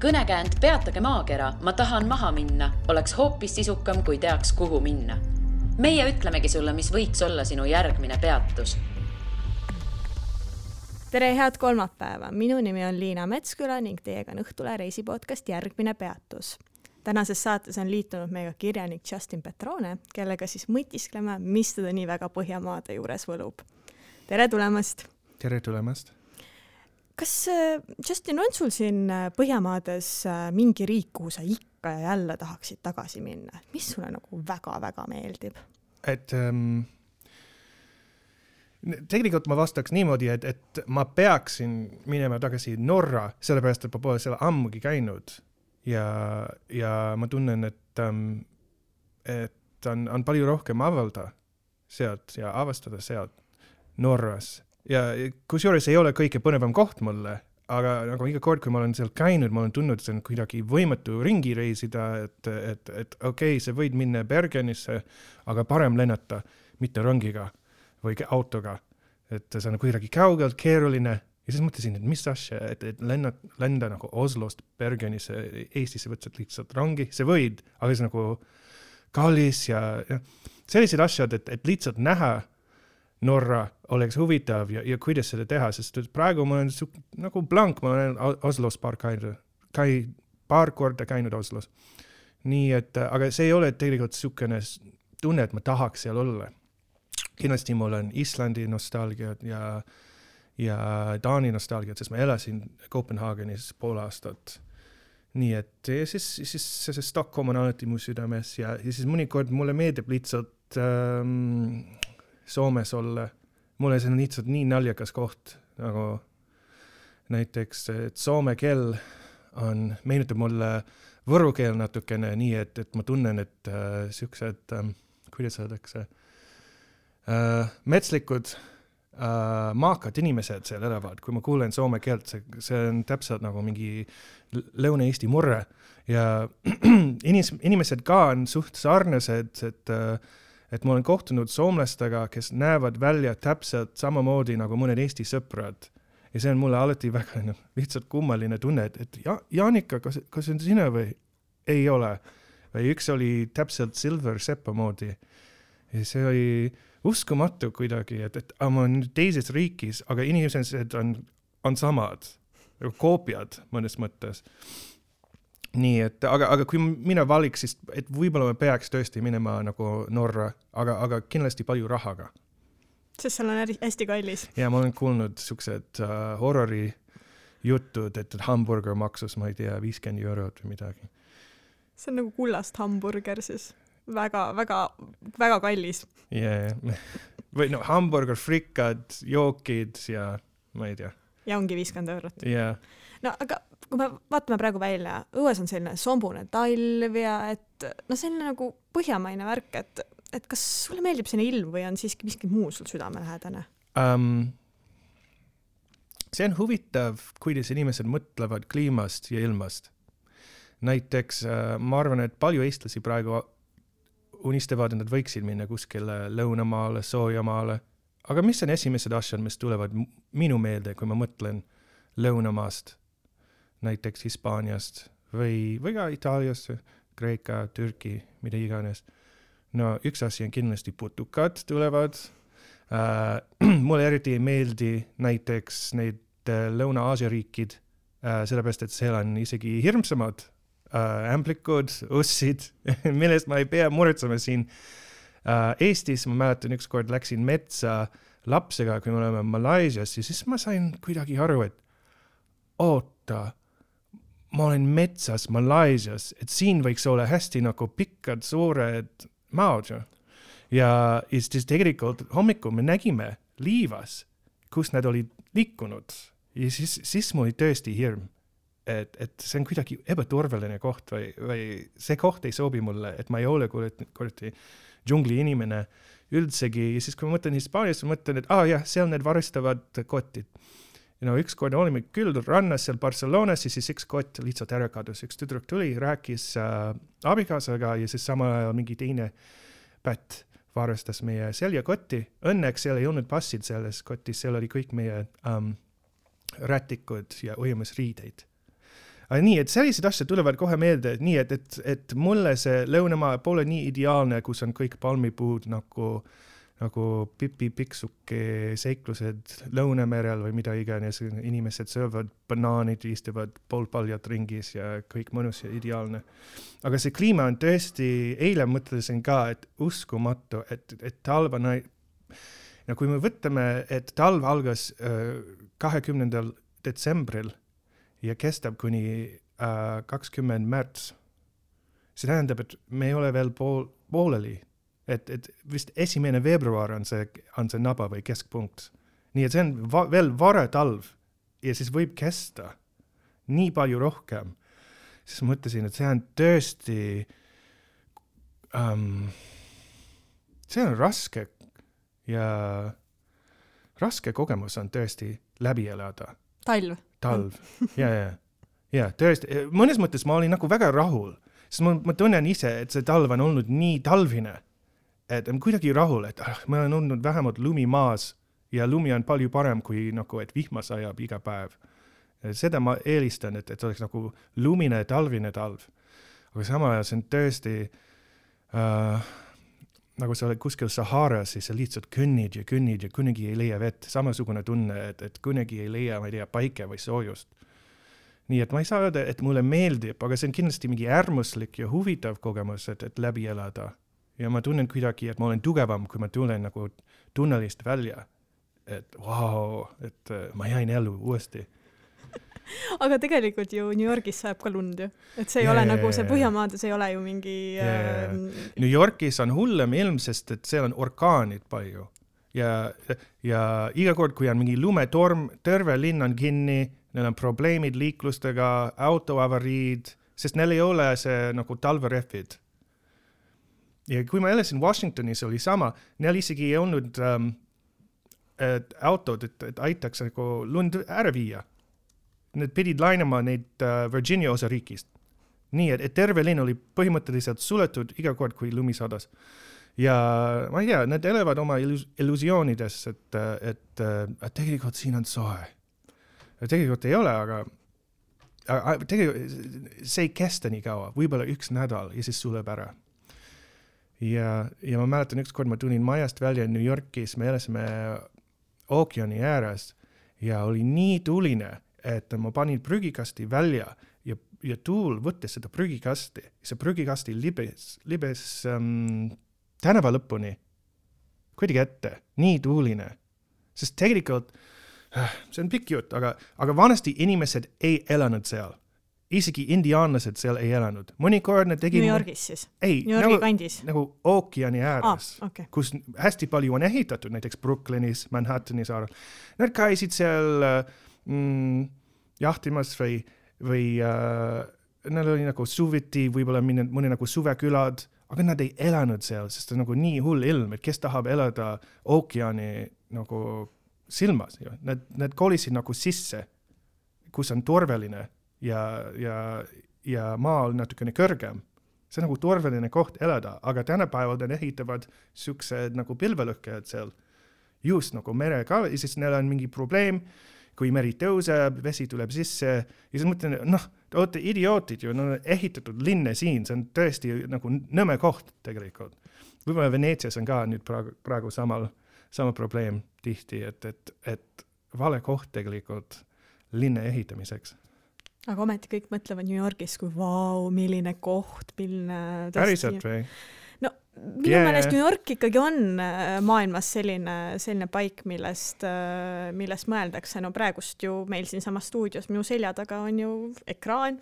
Kõnekäänd Peatage maakera, ma tahan maha minna, oleks hoopis sisukam, kui teaks, kuhu minna. Meie ütlemegi sulle, mis võiks olla sinu järgmine peatus. Tere, head kolmapäeva! Minu nimi on Liina Metsküla ning teiega on Õhtule reisipodcast Järgmine peatus. Tänases saates on liitunud meiega kirjanik Justin Petrone, kellega siis mõtiskleme, mis teda nii väga Põhjamaade juures võlub. Tere tulemast! Tere tulemast! Kas, Justin, on sul siin Põhjamaades mingi riik, kuhu sa ikka ja jälle tahaksid tagasi minna? Mis sulle nagu väga-väga meeldib? Tegelikult ma vastaks niimoodi, et ma peaksin minema tagasi Norra, sellepärast, et ma pole seal ammugi käinud. Ja ma tunnen, et on palju rohkem avalda sealt ja avastada sealt Norras. Ja kusjuures ei ole kõige põnevam koht mulle, aga nagu iga kord, kui ma olen seal käinud, ma olen tundnud, et see on kuidagi võimatu ringi reisida, et okei, sa võid minna Bergenisse, aga parem lennata, mitte rongiga või autoga. Et see on kuidagi kaugelt, keeruline. Ja siis mõtlesin, et mis asja, et lenda nagu Oslost Bergenisse, Eestisse võtsid lihtsalt rongi. See võid, aga see nagu kallis ja sellised asjad, et lihtsalt näha Norra oleks huvitav ja kuidas seda teha, sest praegu ma olen nagu blank, ma olen Oslos paar korda käinud Oslos. Nii et, aga see ei ole tegelikult sukene tunne, et ma tahaks seal olla. Kindlasti mul on Islandi nostalgiat ja Taani nostalgiat, sest ma elasin Kopenhaagenis pool aastat. Nii et siis see Stockholm on alati mu südames ja siis mõnikord mulle meeldib lihtsalt Soomes olla. Mulle see on lihtsalt nii naljakas koht, nagu näiteks, et soome keel meenutab mulle võru keel natukene nii, et ma tunnen, et siuksed, kuidas öeldakse, metslikud maakad inimesed seal elavad. Kui ma kuulen soome keelt, see on täpselt nagu mingi Lõuna-Eesti murre ja inimesed ka on suht sarnased, et ma olen kohtunud soomlastega, kes näevad välja täpselt samamoodi nagu mõned Eesti sõprad. Ja see on mulle alati väga lihtsalt kummaline tunne, et Jaanika, kas on sina või ei ole? Või üks oli täpselt Silver Seppa moodi. Ja see oli uskumatu kuidagi, et ma olen teises riikis, aga inimesed on samad, koopiad mõnes mõttes. Nii, et, aga kui mina valiks, siis et võib-olla me peaks tõesti minema nagu Norra, aga kindlasti palju rahaga. Sest seal on hästi kallis. Ja ma olen kuulnud siuksed horrori jutud, et hamburger maksus, ma ei tea, 50 eurot või midagi. See on nagu kullast hamburger siis. Väga, väga, väga kallis. Yeah. Või hamburger, frikad, jookid ja ma ei tea. Ja ongi 50 eurot. Yeah. No, aga kui me vaatame praegu välja, õues on selline sombune talv ja et see on nagu põhjamaine värk, et kas sulle meeldib selline ilm või on siiski miski muu sul südamelähedane? See on huvitav, kuidas inimesed mõtlevad kliimast ja ilmast. Näiteks ma arvan, et palju eestlasi praegu unistavad, et nad võiksid minna kuskile lõunamaale, soojamaale. Aga mis on esimesed asjad, mis tulevad minu meelde, kui ma mõtlen lõunamaast, näiteks Hispaaniast või ka Itaaliast, Kreeka, Türki, mida iganes. No üks asi on kindlasti putukad tulevad. Mulle eriti ei meeldi näiteks neid Lõuna-Aasia riikid, sellepärast, et seal on isegi hirmsamad ämplikud, ussid, millest ma ei pea muretsema siin. Eestis ma mäletan ükskord läksin metsa lapsega, kui me oleme Malaisias, ja siis ma sain kuidagi aru, et oota, ma olen metsas Malaisias, et siin võiks olla hästi nagu pikkad, suured maad. Ja siis tegelikult hommikul me nägime liivas, kus nad olid liikunud. Ja siis mul oli tõesti hirm. Et see on kuidagi ebaturvaline koht või see koht ei sobi mulle, et ma ei ole kuradi džungli inimene üldsegi. Ja siis kui ma mõtlen Hispaanias, ma mõtlen, et jah, seal need varistavad kotid. Üks kord olime küll rannas seal Barcelonas ja siis üks kott lihtsalt ära kadus. Üks tüdruk tuli, rääkis abikaasaga ja siis sama ajal mingi teine pätt varastas meie seljakotti. Õnneks seal ei olnud passid selles kotis, seal oli kõik meie rätikud ja ujumisriideid. Aga nii, et sellised asjad tulevad kohe meelde, nii, et mulle see lõunamaa pole nii ideaalne, kus on kõik palmipuud nagu Pipi Pikksuke seiklused Lõunamerel või mida iganes, inimesed söövad banaanid, istuvad poolpaljad ringis ja kõik mõnus ja ideaalne. Aga see kliima on tõesti, eile mõtlesin ka, et uskumatu, et talv on, ja kui me võtame, et talv algas 20. detsembril ja kestab kuni 20. märts, see tähendab, et me ei ole veel pooleli. Et vist 1. veebruar on see naba või keskpunkt. Nii et see on veel vara talv ja siis võib kesta nii palju rohkem. Siis mõtlesin, et see on tõesti see on raske ja raske kogemus on tõesti läbi elada. Talv. Ja tõesti, mõnes mõttes ma olin nagu väga rahul, sest ma tunnen ise, et see talv on olnud nii talvine, et on kuidagi rahul, et ma olen olnud vähemalt lumi maas ja lumi on palju parem kui nagu, et vihma sajab iga päev. Seda ma eelistan, et oleks nagu lumine talvine talv. Aga sama ajal see on tõesti nagu sa oled kuskil Saharas, siis sa lihtsalt kõnnid ja kunagi ei leia vett. Samasugune tunne, et kunagi ei leia, ma ei tea, paike või soojust. Nii et ma ei saa öelda, et mulle meeldib, aga see on kindlasti mingi äärmuslik ja huvitav kogemus, et läbi elada. Ja ma tunnen kuidagi, et ma olen tugevam, kui ma tulen nagu tunnelist välja. Et wow, et ma jäin ellu uuesti. Aga tegelikult ju New Yorgis saab ka lund ju. Et see ei ole nagu see Põhjamaades ei ole ju mingi... New Yorgis on hullem ilm, sest et seal on orkaanid palju. Ja iga kord, kui on mingi lumetorm, terve linn on kinni, neil on probleemid liiklustega, autoavariid, sest neil ei ole see nagu talverehvid. Ja kui ma elasin Washingtonis, oli sama, neil isegi ei olnud autod, et aitaks nagu lund ära viia. Need pidid lainama neid Virginia osariigist. Nii, et terve linn oli põhimõtteliselt suletud iga kord, kui lumi sadas. Ja ma ei tea, nad elavad oma illusioonides, et tegelikult siin on soe. Tegelikult ei ole, aga tegelikult see ei kesta nii kaua, võib-olla 1 nädal ja siis suleb ära. Ja ma mäletan ükskord ma tulin majast välja New Yorkis, me elasime ookeani ääres ja oli nii tuline, et ma panin prügikasti välja ja tuul võttis seda prügikasti. See prügikasti libes tänava lõpuni kuidagi ette, nii tuuline. Sest tegelikult, see on pikk jutt, aga vanasti inimesed ei elanud seal. Isegi indiaanlased seal ei elanud. Mõnikord nad tegid... New Yorgis siis? Ei, New Yorgi kandis? Nagu ookeani ääres, okay. Kus hästi palju on ehitatud, näiteks Brooklynis, Manhattani saarel. Nad käisid seal jahtimas või neil oli nagu suviti, võib-olla mõni nagu suvekülad, aga nad ei elanud seal, sest on nagu nii hull ilm, et kes tahab elada ookeani nagu silmas. Nad kolisid nagu sisse, kus on turvaline. Ja maa on natukene kõrgem. See on nagu turvaline koht elada, aga tänapäeval nad ehitavad siuksed nagu pilvelõhkejad seal just nagu mere ka, ja siis neil on mingi probleem, kui meri tõuseb, vesi tuleb sisse, ja siis mõtlen, te olete idiootid ju, ehitatud linne siin, see on tõesti nagu nõme koht tegelikult. Võib-olla Veneetsias on ka nüüd praegu sama probleem tihti, et vale koht tegelikult linne ehitamiseks. Aga ometi kõik mõtlevad New Yorgis, kui vau, milline koht, milline... Päriselt või? No, minu meelest New York ikkagi on maailmas selline paik, millest mõeldakse. No praegust ju meil siin sama stuudios, minu selja taga on ju ekraan,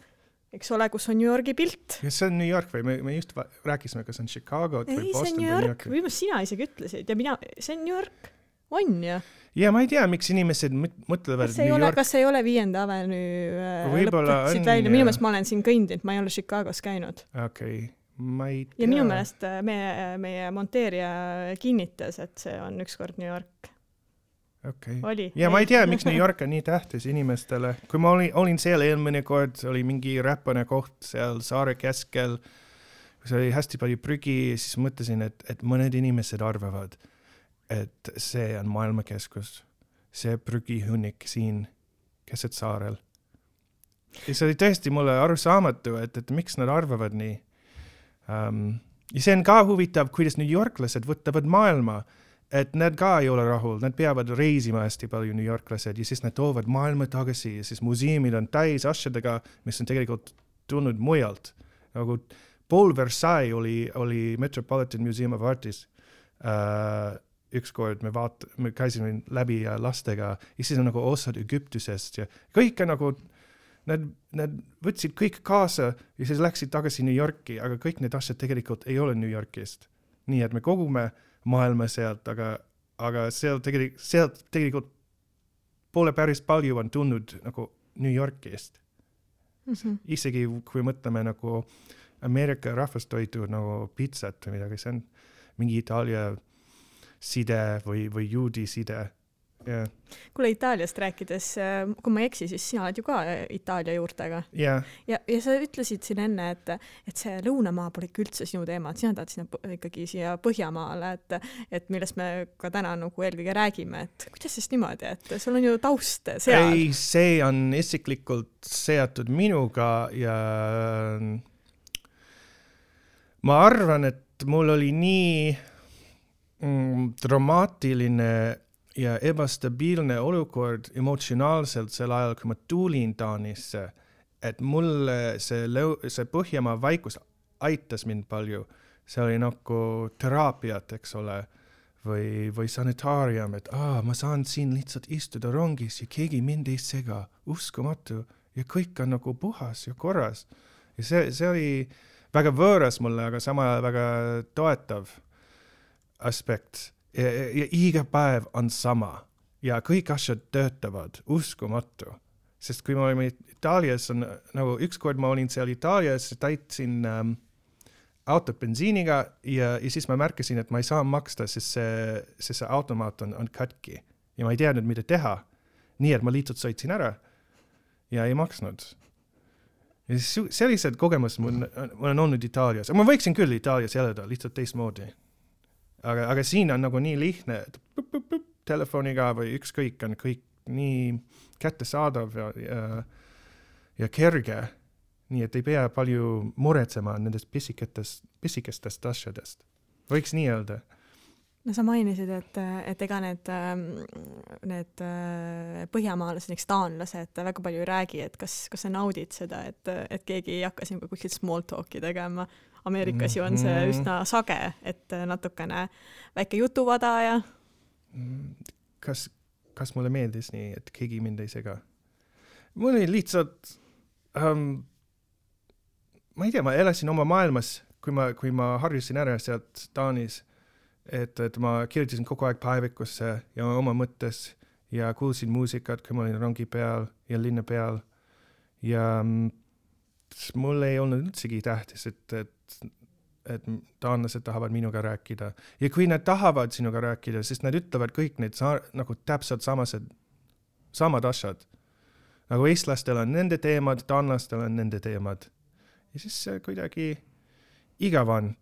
eks ole, kus on New Yorgi pilt. Ja see on New York või? Me just rääkisime, kas on Chicago või Boston. Ei, see on New York. Või sina isegi ütlesid. Ja see on New York. On ju? Ja ma ei tea, miks inimesed mõtlevad New York. Kas ei ole 5. Avenue lõpetasid välja? Minu meelest ma olen siin kõndinud, ma ei ole Chicagos käinud. Okei, ma ei tea. Ja minu meelest meie monteerija kinnitas, et see on ükskord New York. Okay. Oli. Ja ma ei tea, miks New York on nii tähtis inimestele. Kui ma olin seal eelmine kord, oli mingi räpane koht seal saare keskel, kus oli hästi palju prügi, siis mõtlesin, et mõned inimesed arvavad, et see on maailmakeskus, see prügihunnik siin keset saarel. ja see oli tõesti mulle arusaamatu, et miks nad arvavad nii. Ja see on ka huvitav, kuidas New Yorklased võtavad maailma, et nad ka ei ole rahul, nad peavad reisima hästi palju New Yorklased ja siis nad toovad maailma tagasi ja siis museumid on täis asjadega, mis on tegelikult tulnud mujalt. Nagu pool Versailles oli Metropolitan Museum of Artis. Ükskord me käisime läbi lastega ja siis on nagu osad Egiptusest ja kõik on nagu, nad võtsid kõik kaasa ja siis läksid tagasi New Yorki, aga kõik need asjad tegelikult ei ole New Yorkist. Nii et me kogume maailma sealt, aga sealt tegelikult pole päris palju on tulnud nagu New Yorkist. Isegi kui mõtleme nagu Ameerika rahvastoitu nagu pizzat või midagi, see on mingi Itaalia side või juudi side. Yeah. Kuule Itaaliast rääkides, kui ma ei eksi, siis sina oled ju ka Itaalia juurtega. Yeah. Ja sa ütlesid siin enne, et see lõunamaa pole üldse sinu teema, et sina tahad ikkagi siia Põhjamaale, et millest me ka täna nagu eelkõige räägime, et kuidas siis niimoodi, et sul on ju taust seal? Ei, see on isiklikult seatud minuga ja ma arvan, et mul oli nii dramaatiline ja ebastabiilne olukord emotsionaalselt sel ajal, kui ma tulin Taanisse, et mulle see Põhjamaa vaikus aitas mind palju. See oli nagu teraapiat, eks ole, või sanitaarium, et ma saan siin lihtsalt istuda rongis ja keegi mind ei sega, uskumatu ja kõik on nagu puhas ja korras. Ja see oli väga võõras mulle, aga sama väga toetav aspekt. Ja iga päev on sama ja kõik asjad töötavad, uskumatu. Sest kui ma olin Itaalias, nagu ükskord ma olin seal Itaalias, täitsin autot bensiiniga ja siis ma märkasin, et ma ei saa maksta, sest see automaat on katki ja ma ei teadnud, mida teha. Nii, et ma lihtsalt sõitsin ära ja ei maksnud. Ja sellised kogemus mul on olnud Itaalias. Ma võiksin küll Itaalias elada, lihtsalt teistmoodi. Aga siin on nagu nii lihtne, et telefoniga või ükskõik on kõik nii kättesaadav ja kerge, nii et ei pea palju muretsema nendest pisikestest asjadest. Võiks nii öelda. No sa mainisid, et ega need põhjamaalased, näiteks taanlased väga palju ei räägi, et kas sa naudid seda, et keegi ei hakka siin kuskilt small talki tegema. Ameerikas ju on see üsna sage, et natukene väike jutuvada ja... Kas mulle meeldis nii, et keegi mind ei sega? Mul oli lihtsalt... ma ei tea, ma elasin oma maailmas, kui ma harjusin ära sealt Taanis, et ma kirjutasin kogu aeg päevikusse ja oma mõttes ja kuulsin muusikat, kui ma olin rongi peal ja linna peal. Ja mul ei olnud üldsegi tähtis, et taanlased tahavad minuga rääkida. Ja kui nad tahavad sinuga rääkida, siis nad ütlevad kõik need nagu täpselt samad asjad. Nagu eestlastel on nende teemad, taanlastel on nende teemad. Ja siis kuidagi igav on,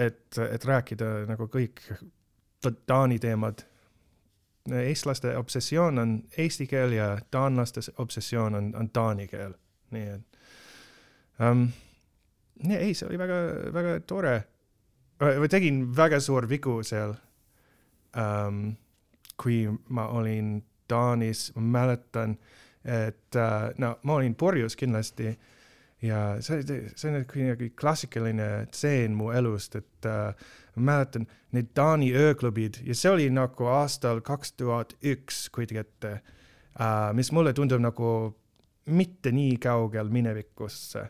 et rääkida nagu kõik taani teemad. Eestlaste obsessioon on eesti keel ja taanlaste obsessioon on taani keel. Nii et ei, see oli väga, väga tore. Ma tegin väga suur vigu seal, kui ma olin Taanis, ma mäletan, et ma olin purjus kindlasti ja see on kuidagi klassikaline tseen mu elust, et ma mäletan need Taani ööklubid ja see oli nagu aastal 2001 kuigi ette, mis mulle tundub nagu mitte nii kaugel minevikusse.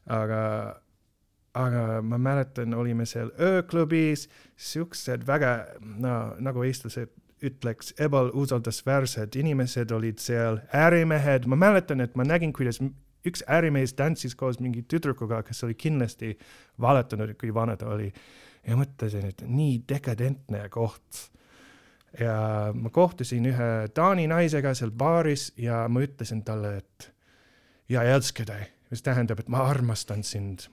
Aga ma mäletan, olime seal ööklubis, siuksed väga, nagu eestlased ütleks, ebausaldusväärsed inimesed olid seal, ärimehed. Ma mäletan, et ma nägin, kuidas üks ärimees tantsis koos mingi tüdrukuga, kes oli kindlasti valetanud, kui vana ta oli. Ja mõtlesin, et nii dekadentne koht. Ja ma kohtusin ühe Taani naisega seal baaris ja ma ütlesin talle, et ja elskede, mis tähendab, et ma armastan sind.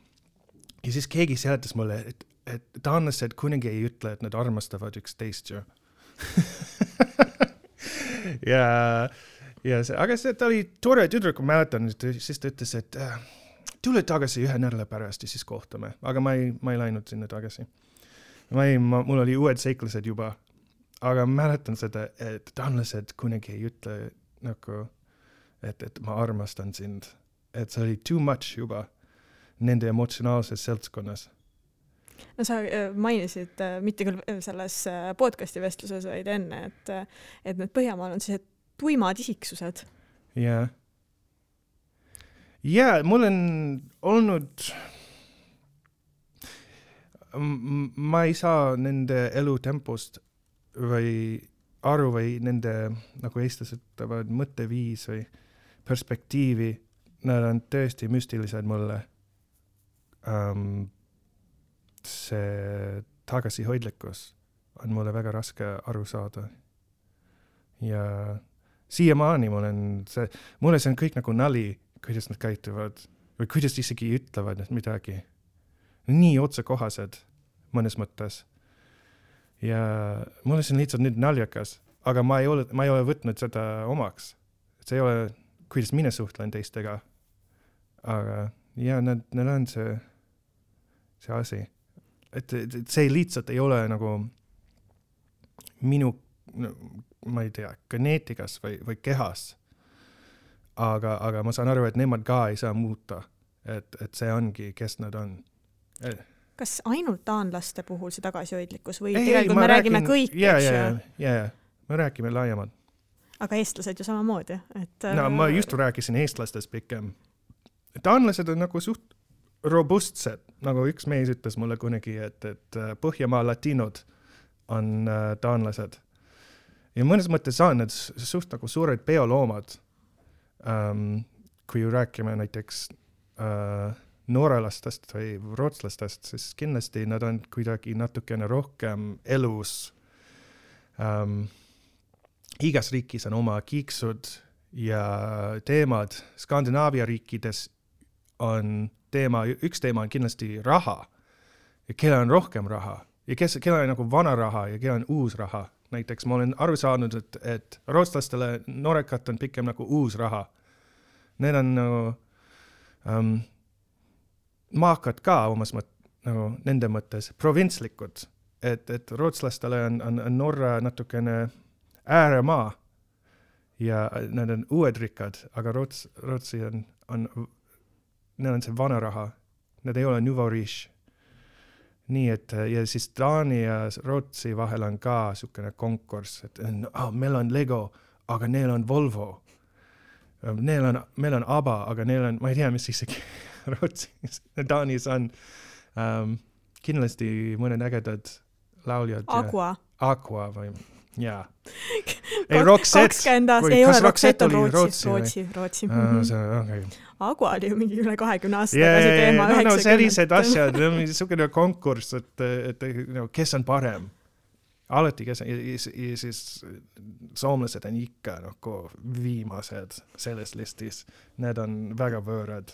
Ja siis keegi seletas mulle, et taanlased kunagi ei ütle, et nad armastavad üksteist ju. ja aga ta oli tore tüdruk, ma mäletan, siis ta ütles, et tule tagasi 1 nädala pärast ja siis kohtame, aga ma ei läinud sinna tagasi. Mul oli uued seiklused juba, aga mäletan seda, et taanlased kunagi ei ütle nagu, et ma armastan sind, et see oli too much juba nende emotsionaalses seltskonnas. No sa mainisid mitte küll selles podcasti vestluses, vaid enne, et need Põhjamaal on sellised tuimad isiksused. Ja, mul on olnud, ma ei saa nende elutempost või aru või nende, nagu eestlased ütlevad, mõtteviis või perspektiivi, nad on tõesti müstilised mulle. See tagasihoidlikkus on mulle väga raske aru saada. Ja siiamaani mulle see on kõik nagu nali, kuidas nad käituvad või kuidas isegi ütlevad midagi. Nii otsekohased mõnes mõttes. Ja mulle see on lihtsalt nüüd naljakas, aga ma ei ole võtnud seda omaks. See ei ole, kuidas mina suhtlen teistega. Aga need on see asi. Et see lihtsalt ei ole nagu minu, ma ei tea, geneetikas või kehas. Aga ma saan aru, et nemad ka ei saa muuta. Et see ongi, kes nad on. Kas ainult taanlaste puhul see tagasihoidlikkus või tegelikult me räägime kõik? Me räägime laiemalt. Aga eestlased ju samamoodi. No ma just rääkisin eestlastest pikem. Taanlased on nagu suht robustsed, nagu üks mees ütles mulle kunagi, et Põhjamaa latinod on taanlased. Ja mõnes mõttes on need suht nagu suured peoloomad. Kui rääkime näiteks noorelastest või rootslastest, siis kindlasti nad on kuidagi natukene rohkem elus. Igas riigis on oma kiiksud ja teemad. Skandinaavia riikides on üks teema on kindlasti raha. Ja kellel on rohkem raha. Ja kellel on nagu vana raha ja kellel on uus raha. Näiteks ma olen aru saanud, et rootslastele noorekat on pikem nagu uus raha. Need on nagu maakad ka omas nagu nende mõttes provintslikud. Et rootslastele on Norra natukene ääremaa ja nad on uued rikkad, aga Rootsi neil on see vana raha. Need ei ole nouveau riche. Nii et, ja siis Taani ja Rootsi vahel on ka sukene konkurss, et meil on Lego, aga neil on Volvo. Meil on ABBA, aga neil on, ma ei tea, mis isegi Rootsis, Taanis on kindlasti mõned ägedad lauljad. Aqua või, jaa. Ei, Roxette. Ei ole, Roxette on Rootsi. Okay. Aqua oli ju mingi üle 20 aasta tagasi teema 90. No sellised asjad, niisugune konkurss, et kes on parem. Alati kes on, ja siis soomlased on ikka nagu viimased selles listis. Need on väga võõrad.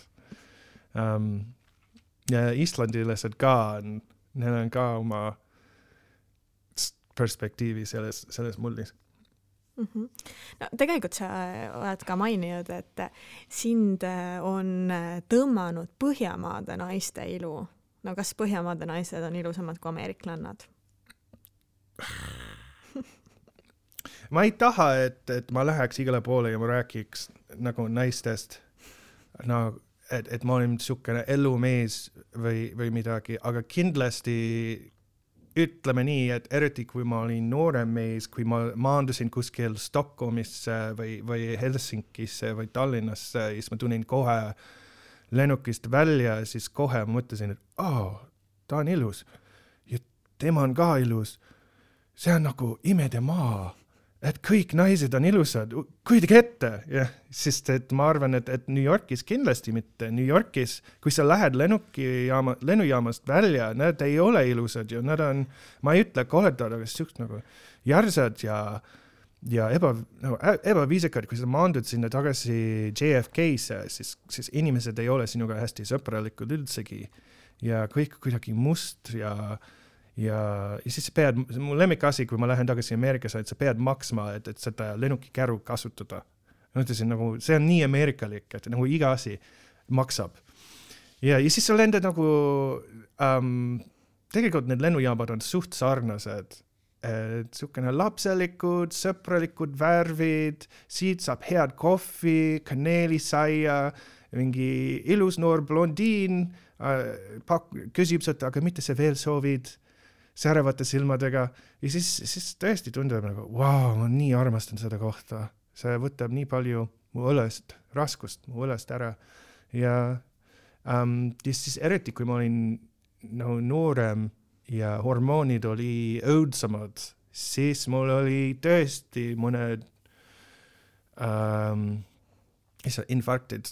Ja islandilased ka on, neil on ka oma perspektiivi selles mullis. No, tegelikult sa oled ka maininud, et sind on tõmmanud Põhjamaade naiste ilu. No kas Põhjamaade naised on ilusamad kui ameeriklannad? Ma ei taha, et ma läheks igale poole ja ma rääkiks nagu naistest, no, et ma olen niisugune elumees või midagi, aga kindlasti ütleme nii, et eriti kui ma olin noorem mees, kui ma maandusin kuskil Stockholmisse või Helsinkisse või Tallinnasse, siis ma tulin kohe lennukist välja, siis kohe ma mõtlesin, et ta on ilus ja tema on ka ilus. See on nagu imede maa, et kõik naised on ilusad, kuidagi ette. Ja, sest et ma arvan, et New Yorkis kindlasti mitte. New Yorkis, kui sa lähed lennujaamast välja, nad ei ole ilusad ja nad on, ma ei ütle koledad, aga siuksed nagu järsad ja ebaviisikad, kui sa maandud sinna tagasi JFK-sse, siis inimesed ei ole sinuga hästi sõpralikud üldsegi ja kõik kuidagi must ja siis mu lemmikasi, kui ma lähen tagasi Ameerikasse, et sa pead maksma, et seda lennukikäru kasutada. Ma ütlesin nagu, see on nii ameerikalik, et nagu iga asi maksab. Ja siis sa lendad nagu, tegelikult need lennujaamad on suht sarnased. Sukene lapselikud, sõpralikud värvid, siit saab head kohvi, kaneelisaia, mingi ilus noor blondiin, küsib seda, aga mitte see veel soovid, säravate silmadega. Ja siis tõesti tundub nagu, wow, ma nii armastan seda kohta. See võtab nii palju mu õlest, raskust mu õlest ära. Ja siis eriti, kui ma olin noorem ja hormoonid oli õudsamad, siis mul oli tõesti mõned infarktid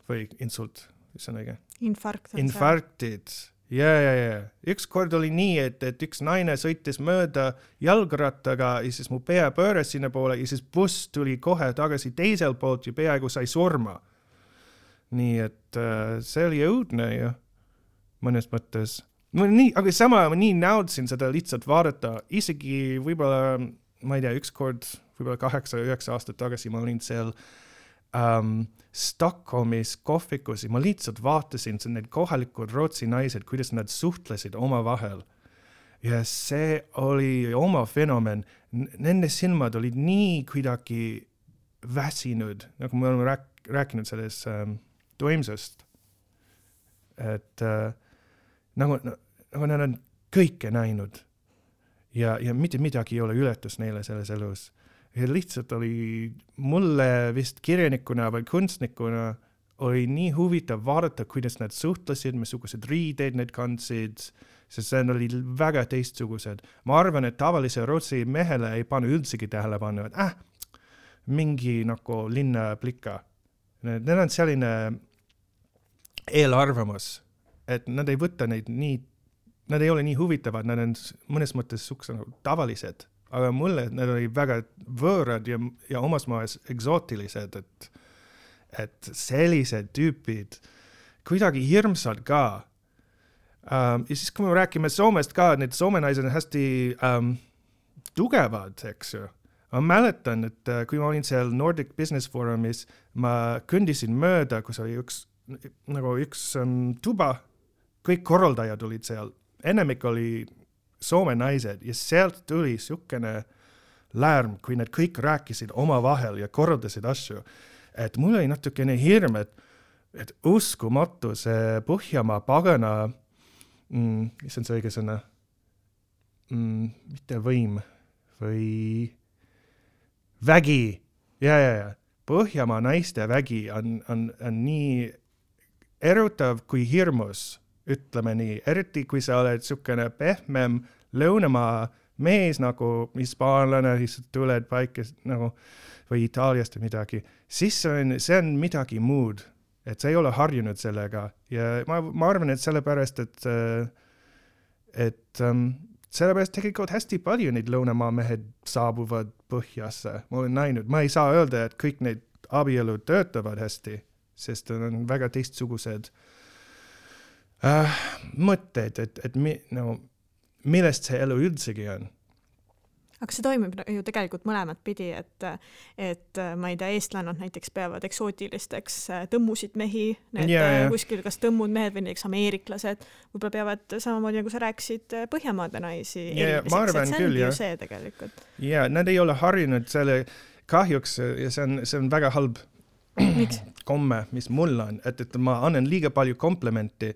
või insult, mis on õige? Infarktid. Ja. Üks kord oli nii, et üks naine sõitis mööda jalgrattaga ja siis mu pea pööras sinna poole ja siis buss tuli kohe tagasi teisel poolt ja peaaegu sai surma. Nii et see oli õudne ju mõnes mõttes. Aga sama ma nii naudsin seda lihtsalt vaadata. Isegi võib-olla, ma ei tea, üks kord, võib-olla 8-9 aastat tagasi ma olin seal Stockholmis kohvikus ja ma lihtsalt vaatasin need kohalikud Rootsi naised, kuidas nad suhtlesid oma vahel. Ja see oli oma fenomen. Nende silmad olid nii kuidagi väsinud, nagu me oleme rääkinud sellest toimsust. Et nagu nad on kõike näinud ja mitte midagi ei ole ületus neile selles elus. Ja lihtsalt oli mulle vist kirjanikuna või kunstnikuna oli nii huvitav vaadata, kuidas nad suhtlesid, missugused riideid need kandsid, sest see oli väga teistsugused. Ma arvan, et tavalise Rootsi mehele ei pane üldsegi tähelepanu, et mingi nagu linnaplika. Need on selline eelarvamus, et nad ei võta neid nii, nad ei ole nii huvitavad, nad on mõnes mõttes tavalised. Aga mulle need oli väga võõrad ja omas maes eksootilised, et sellised tüüpid kuidagi hirmsad ka. Ja siis kui me räägime Soomest ka, need Soome naised on hästi tugevad, eks ju. Ma mäletan, et kui ma olin seal Nordic Business Forumis, ma kõndisin mööda, kus oli üks tuba, kõik korraldajad olid seal. Enamik oli Soome naised ja sealt tuli sukene lärm, kui nad kõik rääkisid oma vahel ja korraldasid asju. Et mul oli natukene hirm, et uskumatu see Põhjamaa pagana, mis on see õige sõna? Mitte võim või vägi. Ja. Põhjamaa naiste vägi on nii erutav kui hirmus. Ütleme nii, eriti kui sa oled sukene pehmem lõunamaa mees nagu hispaanlane, siis tuled paika nagu, või Itaaliast või midagi, siis see on midagi muud, et sa ei ole harjunud sellega ja ma arvan, et sellepärast, et sellepärast tegelikult hästi palju neid lõunamaa mehed saabuvad Põhjasse. Ma olen näinud, ma ei saa öelda, et kõik need abielud töötavad hästi, sest on väga teistsugused mõtted, et millest see elu üldsegi on. Aga see toimib ju tegelikult mõlemat pidi, et ma ei tea, eestlannad näiteks peavad eksootilisteks tõmmusid mehi, kuskil kas tõmmud mehed või näiteks ameeriklased, võib-olla peavad samamoodi, nagu sa rääkisid, Põhjamaade naisi ma arvan küll, ju see tegelikult. Ja, nad ei ole harjunud selle kahjuks ja see on väga halb komme, mis mul on, et ma annan liiga palju komplimenti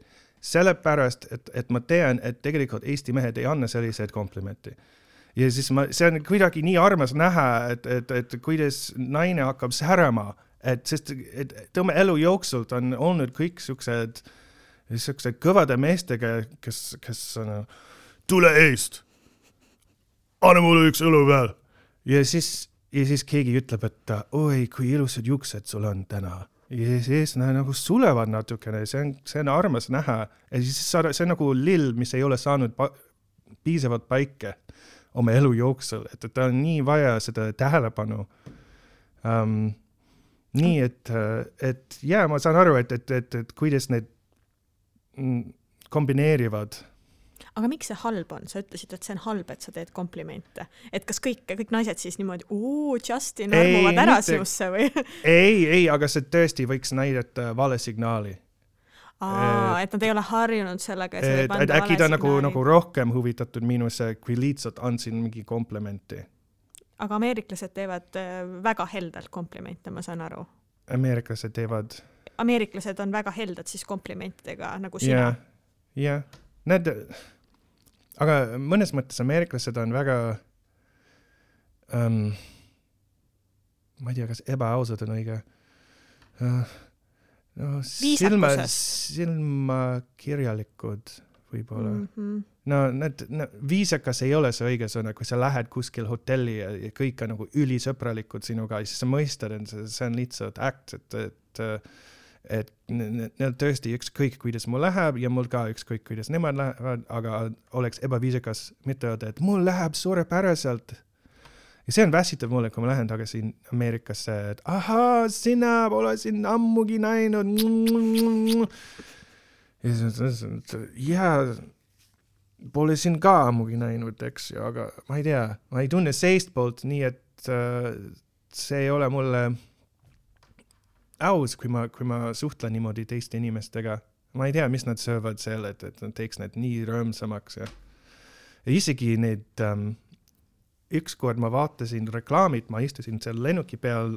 sellepärast, et ma tean, et tegelikult Eesti mehed ei anna selliseid komplimenti. Ja siis see on kuidagi nii armas näha, et kuidas naine hakkab särama, sest tõmme elu jooksult on olnud kõik siuksed kõvade meestega, kes on, tule eest, anna mulle üks õlu veel. Ja siis keegi ütleb, et oi, kui ilusad juuksed sul on täna. Ja siis nagu sulevad natukene, see on armas näha. Ja siis see on nagu lill, mis ei ole saanud piisavalt paike oma elu jooksul, et ta on nii vaja seda tähelepanu. Nii, et ma saan aru, et kuidas need kombineerivad Aga miks see halb on? Sa ütlesid, et see on halb, et sa teed komplimente. Et kas kõik naised siis niimoodi, Justin, armuvad ära sinusse või? ei, aga see tõesti võiks näidata vale signaali. Et nad ei ole harjunud sellega, et võib anda äkki ta nagu rohkem huvitatud minusse, kui lihtsalt andsin mingi komplimenti. Aga ameeriklased teevad väga heldalt komplimente, ma saan aru. Ameeriklased on väga heldad siis komplimentidega, nagu sina. Jah. Aga mõnes mõttes ameeriklased on väga ma ei tea, kas ebaausad on õige silmakirjalikud võib-olla. Viisakas ei ole see õige sõna, kui sa lähed kuskil hotelli ja kõik on nagu ülisõbralikud sinuga, siis sa mõistad, et see on lihtsalt akt, et neil tõesti ükskõik, kuidas mul läheb ja mul ka ükskõik, kuidas nemad lähevad, aga oleks ebaviisakas mitte öelda, et mul läheb suurepäraselt. Ja see on väsitav mulle, kui ma lähen tagasi Ameerikasse, et sina pole siin ammugi näinud. Ja pole siin ka ammugi näinud, eks ju, aga ma ei tea, ma ei tunne seist poolt nii, et see ei ole mulle aus, kui ma suhtlen niimoodi teiste inimestega. Ma ei tea, mis nad söövad selle, et nad teeks need nii rõõmsamaks. Ja isegi need ükskord ma vaatasin reklaamid, ma istusin seal lennuki peal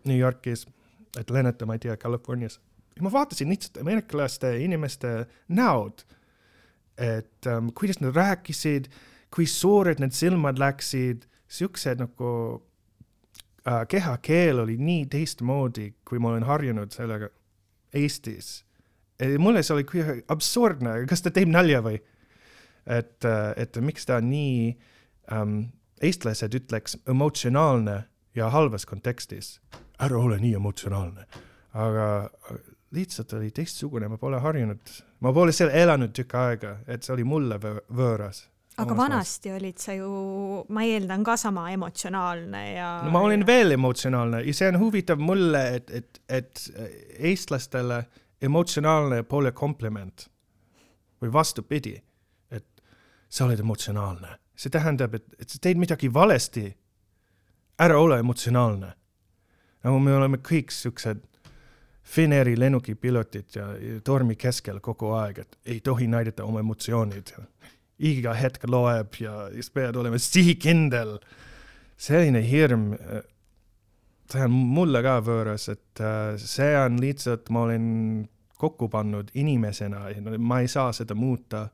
New Yorkis, et lennata, ma ei tea, Californias. Ja ma vaatasin lihtsalt ameeriklaste inimeste näod, et kuidas nad rääkisid, kui suured need silmad läksid, siuksed nagu kehakeel oli nii teistmoodi, kui ma olen harjunud sellega Eestis. Mulle see oli absurdne, kas ta teeb nalja või? Et miks ta nii eestlased ütleks emotsionaalne ja halvas kontekstis. Ära ole nii emotsionaalne. Aga lihtsalt oli teistsugune, ma pole harjunud. Ma pole seal elanud tükk aega, et see oli mulle võõras. Aga vanasti olid sa ju, ma eeldan ka sama emotsionaalne ja... No, ma olen veel emotsionaalne ja see on huvitav mulle, et eestlastele emotsionaalne pole kompliment. Või vastupidi, et sa oled emotsionaalne. See tähendab, et sa teed midagi valesti. Ära ole emotsionaalne. Nagu me oleme kõik siuksed Finnairi lennuki pilotid ja tormi keskel kogu aeg, et ei tohi näidata oma emotsioonid. Iga hetk loeb ja pead olema sihikindel. Selline hirm, see on mulle ka võõras, et see on lihtsalt, ma olen kokku pannud inimesena ja ma ei saa seda muuta.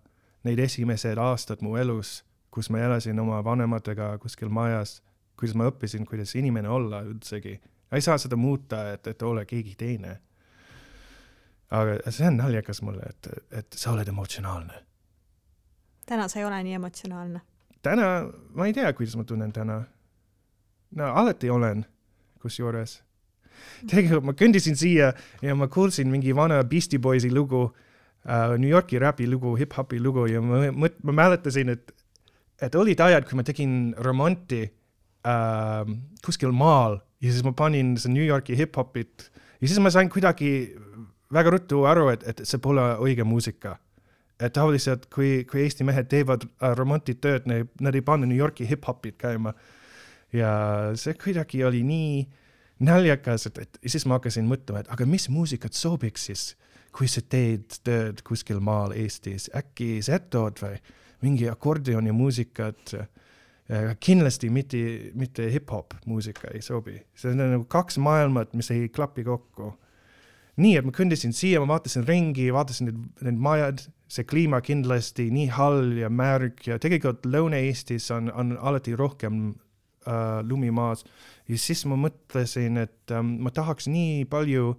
Neid esimesed aastad mu elus, kus ma elasin oma vanematega kuskil majas, kuidas ma õppisin, kuidas inimene olla üldsegi. Ei saa seda muuta, et ole keegi teine. Aga see on naljakas mulle, et sa oled emotsionaalne. Täna sa ei ole nii emotsionaalne. Täna, ma ei tea, kuidas ma tunnen täna. No, alati olen, kus juures. Tegelikult ma kõndisin siia ja ma kuulsin mingi vana Beastie Boysi lugu, New Yorki rapi lugu, hip-hopi lugu ja ma mäletasin, et olid ajad, kui ma tegin remonti kuskil maal ja siis ma panin see New Yorki hip-hopit ja siis ma sain kuidagi väga ruttu aru, et see pole õige muusika. Et tavaliselt, kui Eesti mehed teevad remontitööd, nad ei pane New Yorki hip-hopid käima. Ja see kuidagi oli nii naljakas, et siis ma hakkasin mõtlema, et aga mis muusikat sobiks siis, kui sa teed tööd kuskil maal Eestis? Äkki setod või mingi akordioni muusikat? Kindlasti mitte hip-hop muusika ei sobi. See on nagu kaks maailmat, mis ei klapi kokku. Nii, et ma kõndisin siia, ma vaatasin ringi, vaatasin need majad, see kliima kindlasti nii hall ja märg ja tegelikult Lõuna-Eestis on alati rohkem lumimaas. Ja siis ma mõtlesin, et ma tahaks nii palju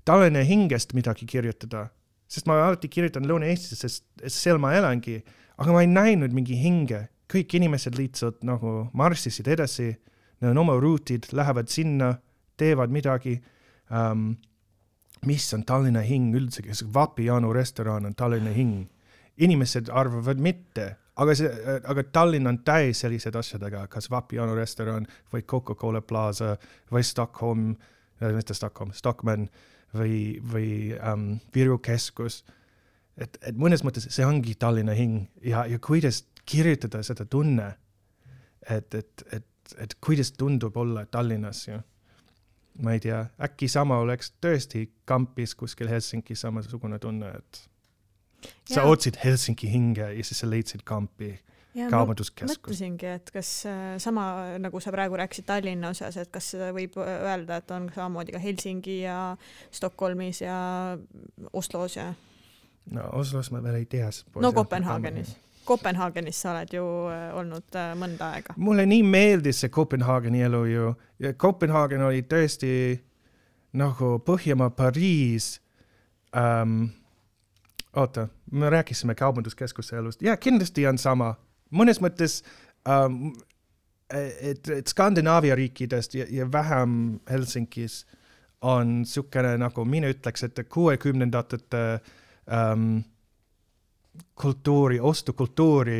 Tallinna hingest midagi kirjutada, sest ma alati kirjutan Lõuna-Eestis, sest seal ma elangi, aga ma ei näinud mingi hinge. Kõik inimesed lihtsalt nagu marssisid edasi, neil on oma ruutid, lähevad sinna, teevad midagi. Mis on Tallinna hing üldsegi? Vapiano restoran on Tallinna hing. Inimesed arvavad mitte, aga Tallinn on täis sellised asjadega, kas Vapiano restoran või Coca-Cola Plaza või Stockman või Viru keskus. et mõnes mõttes see ongi Tallinna hing ja kuidas kirjutada seda tunne, et kuidas tundub olla Tallinnas ja ma ei tea, äkki sama oleks tõesti kampis kuskil Helsingis samasugune tunne, et sa otsid Helsingi hinge ja siis sa leidsid kampi kaubanduskeskus. Mõtlesingi, et kas sama, nagu sa praegu rääkisid Tallinna osas, et kas seda võib öelda, et on samamoodi ka Helsingi ja Stockholmis ja Oslos ja... No Oslos ma veel ei tea. No Kopenhaagenis sa oled ju olnud mõnda aega. Mulle nii meeldis see Kopenhaageni elu ju. Ja Kopenhaagen oli tõesti nagu Põhjamaa Pariis. Oota, me rääkisime kaubanduskeskuse elust. Ja kindlasti on sama. Mõnes mõttes, et Skandinaavia riikidest ja vähem Helsingis on sukene, nagu mina ütleks, et 60-ndatete kultuuri, ostukultuuri,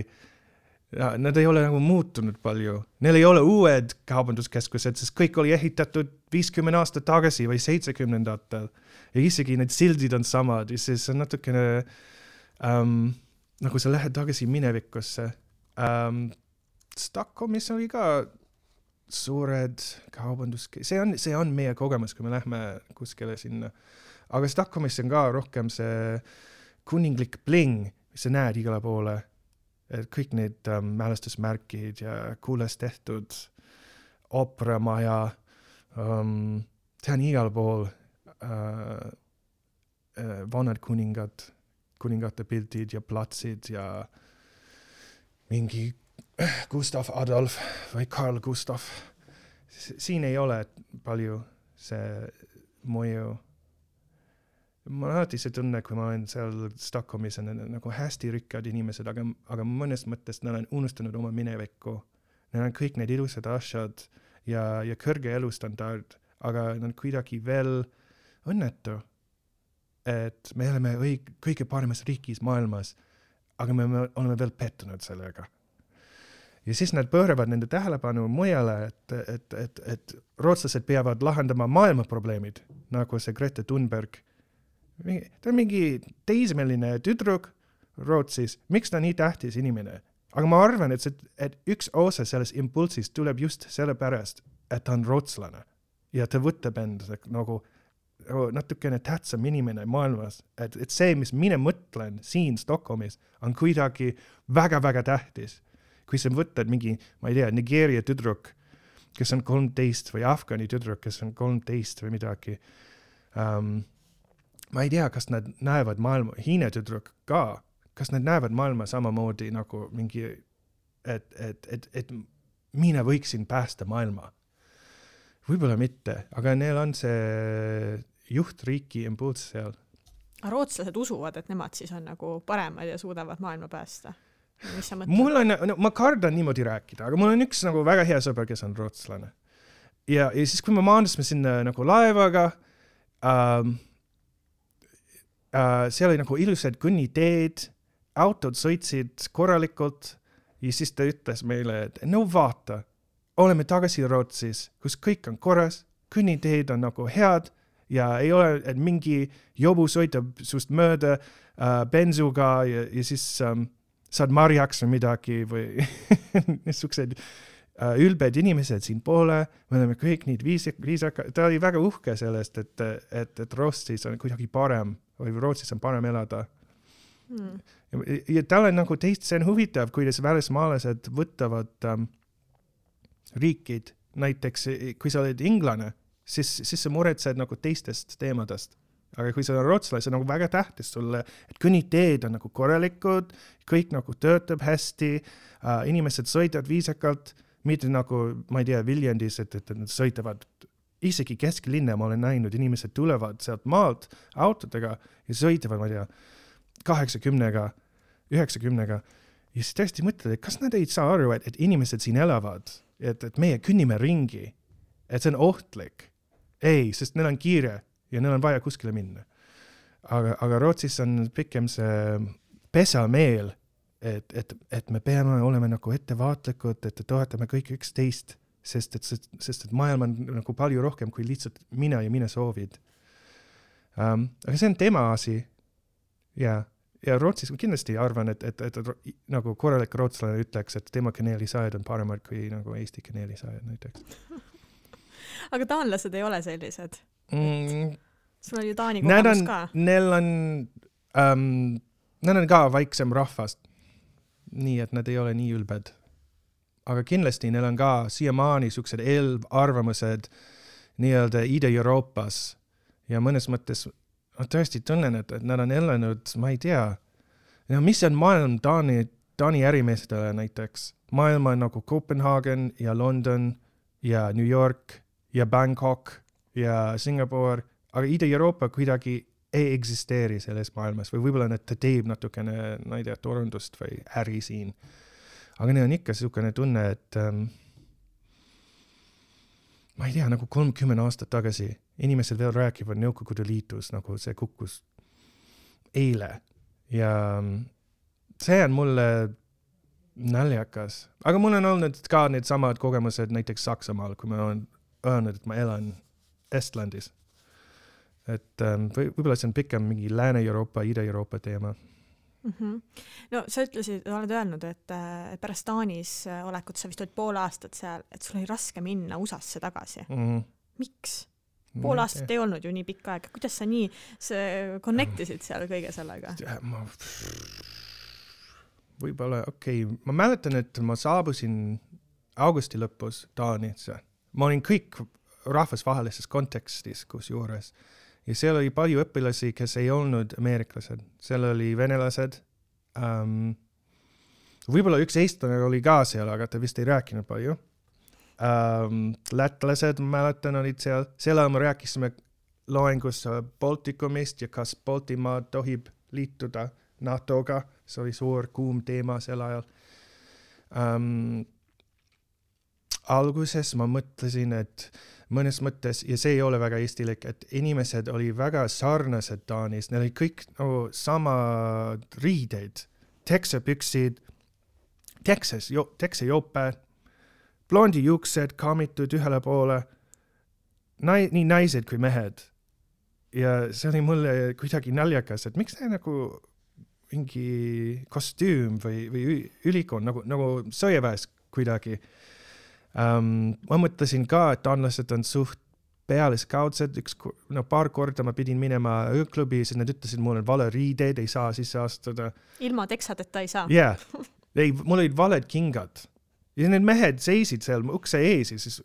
nad ei ole nagu muutunud palju. Neil ei ole uued kaubanduskeskused, sest kõik oli ehitatud 50 aastat tagasi või 70-ndatel. Ja isegi need sildid on samad ja siis on natukene nagu sa lähed tagasi minevikusse. Stockholmis oli ka suured kaubanduskeskused. See on meie kogemus, kui me lähme kuskile sinna. Aga Stockholmis on ka rohkem see kuninglik bling, mis sa näed igale poole. Et kõik need mälestusmärkid ja kuules tehtud operamaja, see on igal pool vanad kuningate pildid ja platsid ja mingi Gustav Adolf või Carl Gustav. Siin ei ole palju see mõju. Ma alati see tunne, kui ma olen seal Stockholmis, on nagu hästi rikkad inimesed, aga mõnes mõttes nad on unustanud oma minevikku. Nad on kõik need ilusad asjad ja kõrge elustandard, aga nad kuidagi veel õnnetu, et me oleme kõige paremas riigis maailmas, aga me oleme veel pettunud sellega. Ja siis nad pööravad nende tähelepanu mujale, et rootslased peavad lahendama maailma probleemid, nagu see Greta Thunberg. Ta on mingi teismeline tüdruk Rootsis. Miks ta nii tähtis inimene? Aga ma arvan, et üks osa sellest impulsist tuleb just sellepärast, et ta on rootslane. Ja ta võtab end nagu natukene tähtsam inimene maailmas. Et see, mis mina mõtlen siin Stockholmis, on kuidagi väga-väga tähtis. Kui sa võtad mingi, ma ei tea, Nigeeria tüdruk, kes on 13 või Afgani tüdruk, kes on 13 või midagi, ma ei tea, kas nad näevad maailma, Hiina tüdruk ka, kas nad näevad maailma samamoodi nagu mingi, et mina võiksin päästa maailma. Võib-olla mitte, aga neil on see juhtriiki impulss seal. Rootslased usuvad, et nemad siis on nagu paremad ja suudavad maailma päästa. Mis sa mõtled? Ma kardan niimoodi rääkida, aga mul on üks nagu väga hea sõber, kes on rootslane. Ja siis, kui me maandusime sinna nagu laevaga, seal oli nagu ilusad kõnniteed, autod sõitsid korralikult ja siis ta ütles meile, et no vaata, oleme tagasi Rootsis, kus kõik on korras, kõnniteed on nagu head ja ei ole, et mingi jobu sõitab sust mööda bensuga ja siis saad marjaks või midagi või niisugused ülbed inimesed siin poole, me oleme kõik neid viisaka, ta oli väga uhke sellest, et Rootsis on kuidagi parem või Rootsis on parem elada. Ja tal on nagu see on huvitav, kuidas välismaalased võtavad riikid, näiteks kui sa oled inglane, siis sa muretsed nagu teistest teemadest. Aga kui sa on rootslane, see on nagu väga tähtis sulle, et kõnniteed on nagu korralikud, kõik nagu töötab hästi, inimesed sõidavad viisakalt, mitte nagu, ma ei tea, Viljandis, et nad sõitavad isegi kesklinna, ma olen näinud, inimesed tulevad sealt maalt autodega ja sõitavad, ma ei tea, 80-ga, 90-ga. Ja siis tõesti mõtled, et kas nad ei saa aru, et inimesed siin elavad, et meie künnime ringi, et see on ohtlik. Ei, sest neil on kiire ja neil on vaja kuskile minna. Aga Rootsis on pikem see pesameel, et me peame olema nagu ettevaatlikud, et toetame kõik üksteist, sest et maailm on nagu palju rohkem kui lihtsalt mina ja mina soovid. Aga see on tema asi. Ja ja Rootsis ma kindlasti arvan, et nagu korralik rootslane ütleks, et tema kaneelisajad on paremad kui nagu Eesti kaneelisajad näiteks. Aga taanlased ei ole sellised. Sul on ju Taani Nad kogemus on, ka. nad on ka vaiksem rahvast. Nii, et nad ei ole nii ülbed. Aga kindlasti neil on ka siiamaani siuksed eelarvamused nii-öelda Ida-Euroopas ja mõnes mõttes ma tõesti tunnen, et nad on elanud, ma ei tea, mis on maailm Taani ärimeestele näiteks. Maailm on nagu Copenhagen ja London ja New York ja Bangkok ja Singapore, aga Ida-Euroopa kuidagi ei eksisteeri selles maailmas või võib-olla ta teeb natukene, ma ei tea, turundust või äri siin. Aga neil on ikka selline tunne, et ma ei tea, nagu 30 aastat tagasi inimesed veel rääkivad Nõukogude Liitus, nagu see kukkus eile. Ja see on mulle naljakas. Aga mul on olnud ka need samad kogemused näiteks Saksamaal, kui ma olen öelnud, et ma elan Estlandis. Et võib-olla see on pikem mingi Lääne-Euroopa, Ida-Euroopa teema. No sa oled öelnud, et pärast Taanis olekut sa vist olid pool aastat seal, et sul oli raske minna USA-sse tagasi. Miks? Pool aastat ei olnud ju nii pikka aega. Kuidas sa nii connectisid seal kõige sellega? Võib-olla, ma mäletan, et ma saabusin augusti lõpus Taanisse. Ma olin kõik rahvusvahelises kontekstis kus juures. Ja seal oli palju õpilasi, kes ei olnud ameeriklased. Seal oli venelased. Võib-olla üks eestlane oli ka seal, aga ta vist ei rääkinud palju. Lätlased, ma mäletan, olid seal. Seal me rääkisime loengus Baltikumist ja kas Baltimaa tohib liituda NATO-ga. See oli suur kuum teema sel ajal. Alguses ma mõtlesin, et mõnes mõttes, ja see ei ole väga eestilik, et inimesed oli väga sarnased Taanis. Neil oli kõik nagu sama riideid, teksepüksid, teksejope, blondi juuksed kaamitud ühele poole, nii naised kui mehed. Ja see oli mulle kuidagi naljakas, et miks see nagu mingi kostüüm või ülikool, nagu sõjaväes kuidagi. Ma mõtlesin ka, et taanlased on suht pealiskaudsed, paar korda ma pidin minema ööklubi, siis nad ütlesid mulle vale riideid, ei saa sisse astuda. Ilma teksadeta ei saa? Jah, mul olid valed kingad. Ja need mehed seisid seal ukse ees ja siis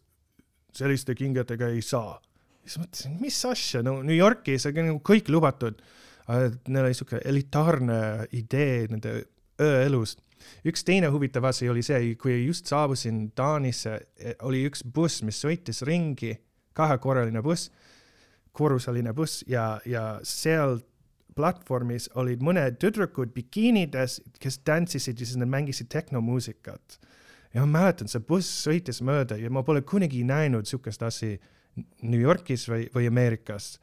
selliste kingadega ei saa. Siis mõtlesin, mis asja, New Yorkis on kõik lubatud. Neil oli selline elitaarne idee nende ööelust. Üks teine huvitav asi oli see, kui just saabusin Taanisse, oli üks buss, mis sõitis ringi, kahekorraline buss, korruseline buss ja seal platvormis olid mõned tüdrukud bikiinides, kes tantsisid ja siis nad mängisid tehnomuusikat. Ja ma mäletan, see buss sõitis mööda ja ma pole kunagi näinud sukest asi New Yorkis või Ameerikas.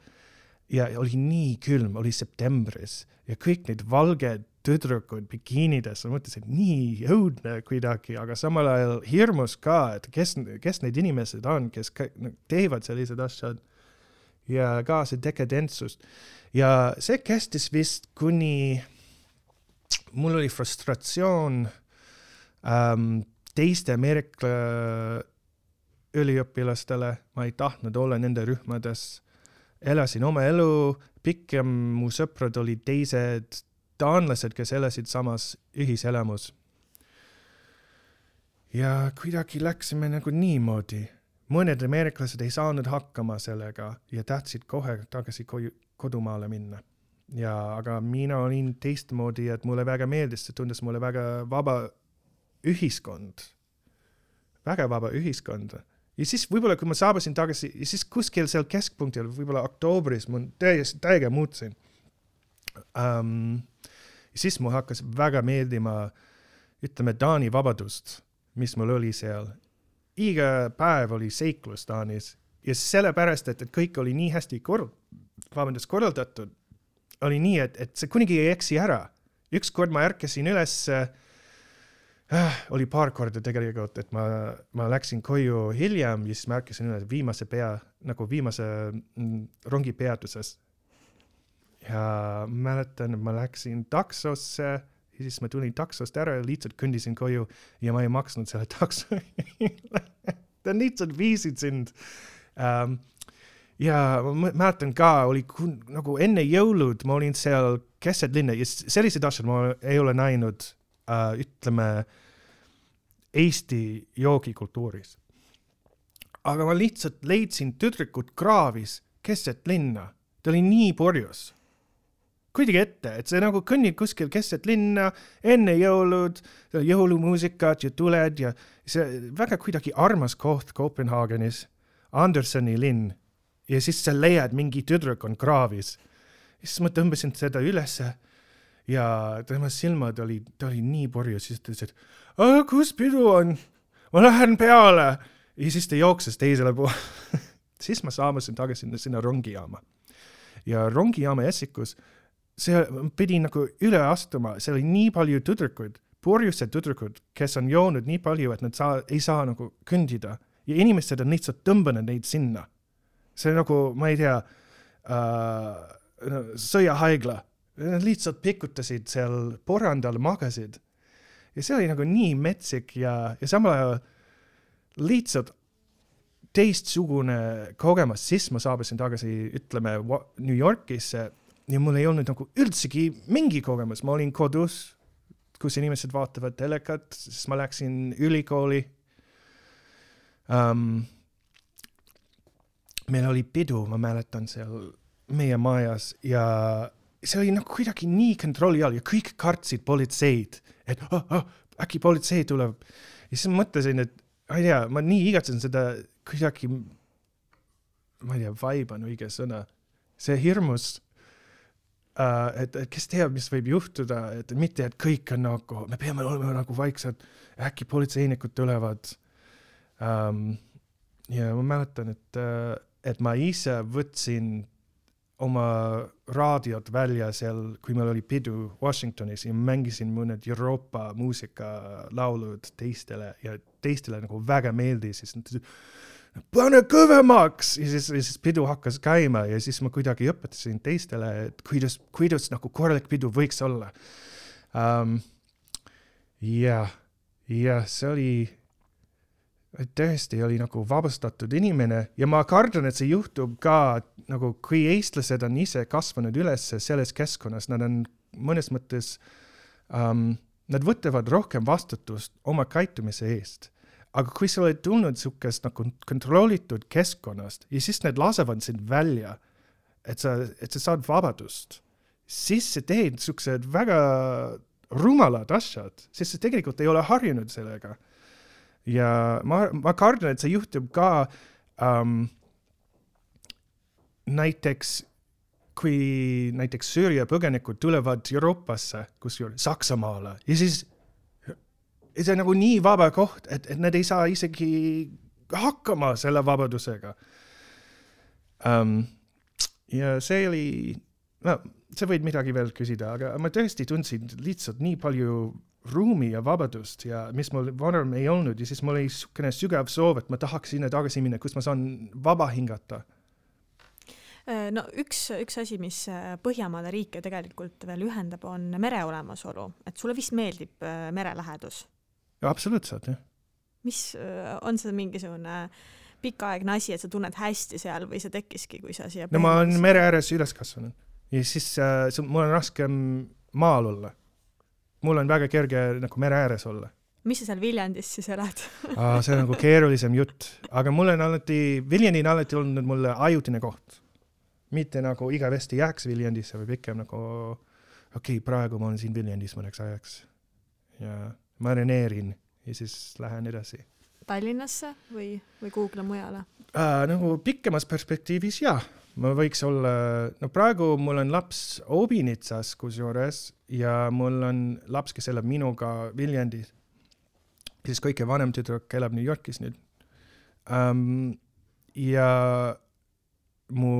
Ja oli nii külm, oli septembris ja kõik need valged tüdrukud bikiinides, ma mõtlesin, et nii õudne kuidagi, aga samal ajal hirmus ka, et kes need inimesed on, kes teevad sellised asjad ja ka see dekadentsust. Ja see kestis vist kuni mul oli frustratsioon teiste Ameerika üliõpilastele, ma ei tahtnud olla nende rühmades. Elasin oma elu, pikem mu sõprad olid teised taanlased, kes elasid samas ühiselamus. Ja kuidagi läksime nagu niimoodi. Mõned ameeriklased ei saanud hakkama sellega ja tahtsid kohe tagasi kodumaale minna. Aga mina olin teistmoodi, et mulle väga meeldis, see tundus mulle väga vaba ühiskond. Väga vaba ühiskond. Ja siis võib-olla, kui ma saabusin tagasi, ja siis kuskil seal keskpunktil, võib-olla oktoobris, ma täiega muutsin. Ja siis mul hakkas väga meeldima, ütleme, Taani vabadust, mis mul oli seal. Iga päev oli seiklus Taanis ja sellepärast, et kõik oli nii hästi korraldatud, oli nii, et see kunagi ei eksi ära. Üks kord ma ärkasin üles, oli paar korda tegelikult, et ma läksin koju hiljem ja siis ma ärkasin üles viimase rongi peatuses. ja mäletan, ma läksin taksosse ja siis ma tulin taksost ära ja lihtsalt kõndisin koju ja ma ei maksnud selle takso. Ta lihtsalt viisid sind. Ja ma mäletan ka, oli nagu enne jõulud, ma olin seal keset linna ja sellised asjad ma ei ole näinud, ütleme, Eesti joogikultuuris. Aga ma lihtsalt leidsin tüdrukut kraavis keset linna. Ta oli nii purjus. Kuidagi ette, et see nagu kõnnid kuskil keset linna, enne jõulud, jõulumuusikat ja tuled ja see väga kuidagi armas koht Kopenhaagenis, Andersoni linn. Ja siis sa leiad mingi tüdruk on kraavis. Ja siis ma tõmbasin seda ülesse ja tema silmad ta oli nii purjus, siis ta ütles, et kus pidu on? Ma lähen peale. Ja siis ta jookses teisele poole. Siis ma saamasin tagasi sinna rongijaama. Ja rongijaama Essikus see pidi nagu üle astuma, see oli nii palju tüdrukud, purjused tüdrukud, kes on joonud nii palju, et nad ei saa nagu kõndida. Ja inimesed on lihtsalt tõmbanud neid sinna. See nagu, ma ei tea, sõjahaigla. Nad lihtsalt pikutasid seal porandal, magasid. Ja see oli nagu nii metsik ja samal ajal lihtsalt teistsugune kogemus. Siis ma saabusin tagasi, ütleme, New Yorkisse ja mul ei olnud nagu üldsegi mingi kogemus. Ma olin kodus, kus inimesed vaatavad telekat, siis ma läksin ülikooli. Meil oli pidu, ma mäletan seal meie majas ja see oli nagu kuidagi nii kontrolli all ja kõik kartsid politseid, et äkki politsei tuleb. Ja siis mõtlesin, et ma ei tea, ma nii igatsen seda kuidagi, ma ei tea, vibe on õige sõna. See hirmus, et kes teab, mis võib juhtuda, et mitte, et kõik on nagu, me peame olema nagu vaiksed, äkki politseinikud tulevad. Ja ma mäletan, et ma ise võtsin oma raadiot välja seal, kui meil oli pidu Washingtonis ja mängisin mõned Euroopa muusikalaulud teistele ja teistele nagu väga meeldis. Siis pane kõvemaks! Ja siis pidu hakkas käima ja siis ma kuidagi õpetasin teistele, et kuidas nagu korralik pidu võiks olla. Ja see oli tõesti oli nagu vabastatud inimene ja ma kardan, et see juhtub ka nagu kui eestlased on ise kasvanud üles selles keskkonnas, nad on mõnes mõttes, nad võtavad rohkem vastutust oma käitumise eest. Aga kui sa oled tulnud sukest nagu kontrollitud keskkonnast ja siis need lasevad sind välja, et sa saad vabadust, siis sa teed suksed väga rumalad asjad, sest sa tegelikult ei ole harjunud sellega. Ja ma kardan, et see juhtub ka näiteks, kui näiteks Süüria põgenikud tulevad Euroopasse, kusjuures Saksamaale, ja siis see on nagu nii vaba koht, et nad ei saa isegi hakkama selle vabadusega. Ja see oli, sa võid midagi veel küsida, aga ma tõesti tundsin lihtsalt nii palju ruumi ja vabadust ja mis mul varem ei olnud ja siis mul oli sügav soov, et ma tahaks sinna tagasi minna, kus ma saan vaba hingata. No üks asi, mis Põhjamaade riike tegelikult veel ühendab, on mere olemasolu. Et sulle vist meeldib merelähedus? Ja, absoluutselt, jah. Mis on see mingisugune pikaaegne asi, et sa tunned hästi seal või see tekkiski, kui sa siia... No ma olen mere ääres üles kasvanud ja siis mul on raskem maal olla. Mul on väga kerge nagu mere ääres olla. Mis sa seal Viljandis siis elad? See on nagu keerulisem jutt, aga mul on Viljandi on alati olnud mulle ajutine koht. Mitte nagu igavesti jääks Viljandisse või pikem nagu, praegu ma olen siin Viljandis mõneks ajaks ja marineerin ja siis lähen edasi. Tallinnasse või kuhugile mujale? Nagu pikemas perspektiivis, jah. Ma võiks olla, praegu mul on laps Obinitsas kusjuures ja mul on laps, kes elab minuga Viljandis. Siis kõige vanem tüdruk elab New Yorkis nüüd. Ja mu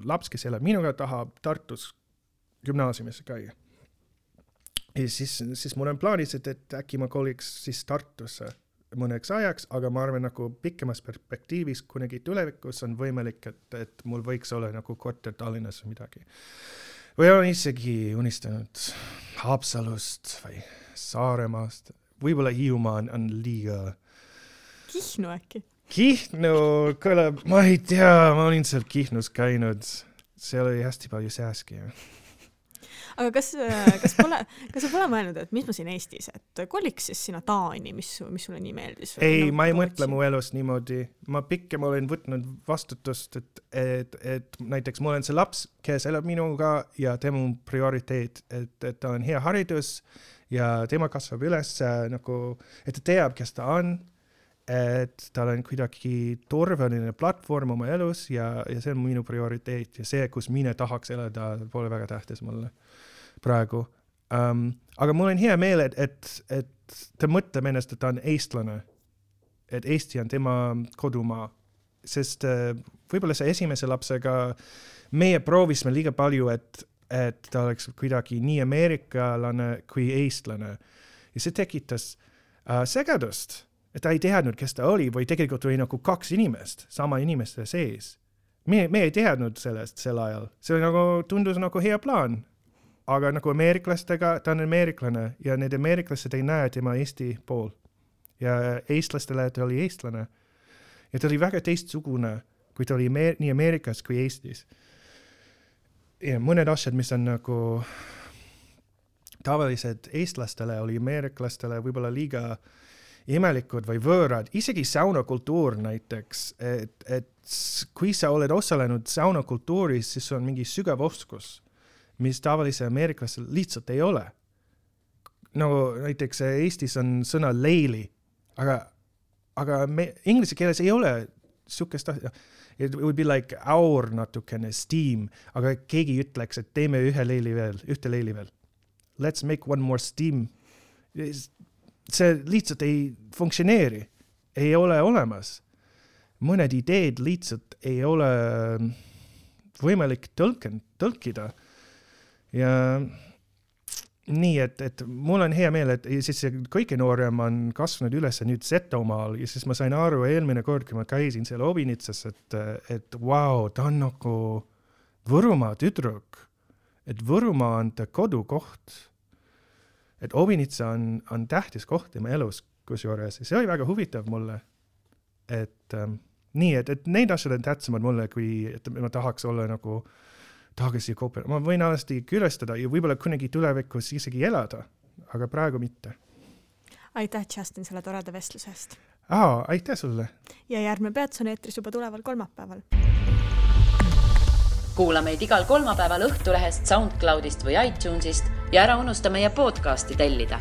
laps, kes elab minuga, tahab Tartus gümnaasiumisse käia. Ja siis mul on plaanis, et äkki ma koliks siis Tartusse mõneks ajaks, aga ma arvan nagu pikemas perspektiivis kunagi tulevikus on võimalik, et mul võiks olla nagu korter Tallinnas või midagi. või olen isegi unistanud Haapsalust või Saaremaast. Võib-olla Hiiumaa on liiga... Kihnu äkki? Kihnu kõlab, ma ei tea, ma olin seal Kihnus käinud. Seal oli hästi palju sääski. Aga kas sa pole mõelnud, et mis ma siin Eestis, et koliks siis sinna Taani, mis sulle nii meeldis? Ei, ma ei mõtle mu elust niimoodi. Ma pikem olen võtnud vastutust, et näiteks mul on see laps, kes elab minuga ja tema on prioriteet, et ta on hea haridus ja tema kasvab üles nagu, et ta teab, kes ta on, et tal on kuidagi turvaline platvorm oma elus ja see on minu prioriteet ja see, kus mina tahaks elada, pole väga tähtis mulle praegu. Aga mul on hea meel, et ta mõtleb ennast, et ta on eestlane, et Eesti on tema kodumaa, sest võib-olla see esimese lapsega meie proovisime liiga palju, et ta oleks kuidagi nii ameerikalane kui eestlane ja see tekitas segadust. Et ta ei teadnud, kes ta oli, või tegelikult oli nagu 2 inimest, sama inimeste sees. Me ei teadnud sellest sel ajal. See nagu, tundus nagu hea plaan. Aga nagu ameeriklastega, ta on ameeriklane ja need ameeriklased ei näe tema Eesti pool. Ja eestlastele ta oli eestlane. Ja ta oli väga teistsugune, kui ta oli nii Ameerikas kui Eestis. Ja mõned asjad, mis on nagu tavalised eestlastele, oli ameeriklastele võib-olla liiga imelikud või võõrad, isegi saunakultuur näiteks, et kui sa oled osalenud saunakultuuris, siis on mingi sügav oskus, mis tavalise ameeriklasel lihtsalt ei ole. Nagu näiteks Eestis on sõna leili, aga inglise keeles ei ole sukest asja. It would be like our natukene steam, aga keegi ütleks, et teeme ühte leili veel. Let's make one more steam. See lihtsalt ei funktsioneeri, ei ole olemas. Mõned ideed lihtsalt ei ole võimalik tõlkida. Ja nii, et mul on hea meel, et siis kõige noorem on kasvanud üles nüüd Setomaal ja siis ma sain aru eelmine kord, kui ma käisin seal Obinitsas, et wow, ta on nagu Võrumaa tüdruk, et Võrumaa on ta kodukoht. Et Obinitsa on tähtis koht tema elus kusjuures. See oli väga huvitav mulle. Et nii, et need asjad on tähtsamad mulle, kui et ma tahaks olla nagu tahaks Koopel. Ma võin alati külastada ja võib-olla kunagi tulevikus isegi elada, aga praegu mitte. Aitäh, Justin, selle toreda vestlusest. Aitäh sulle. Ja järgmine peatus on eetris juba tuleval kolmapäeval. Kuula meid igal kolmapäeval Õhtulehest, SoundCloudist või iTunesist ja ära unusta meie podcasti tellida.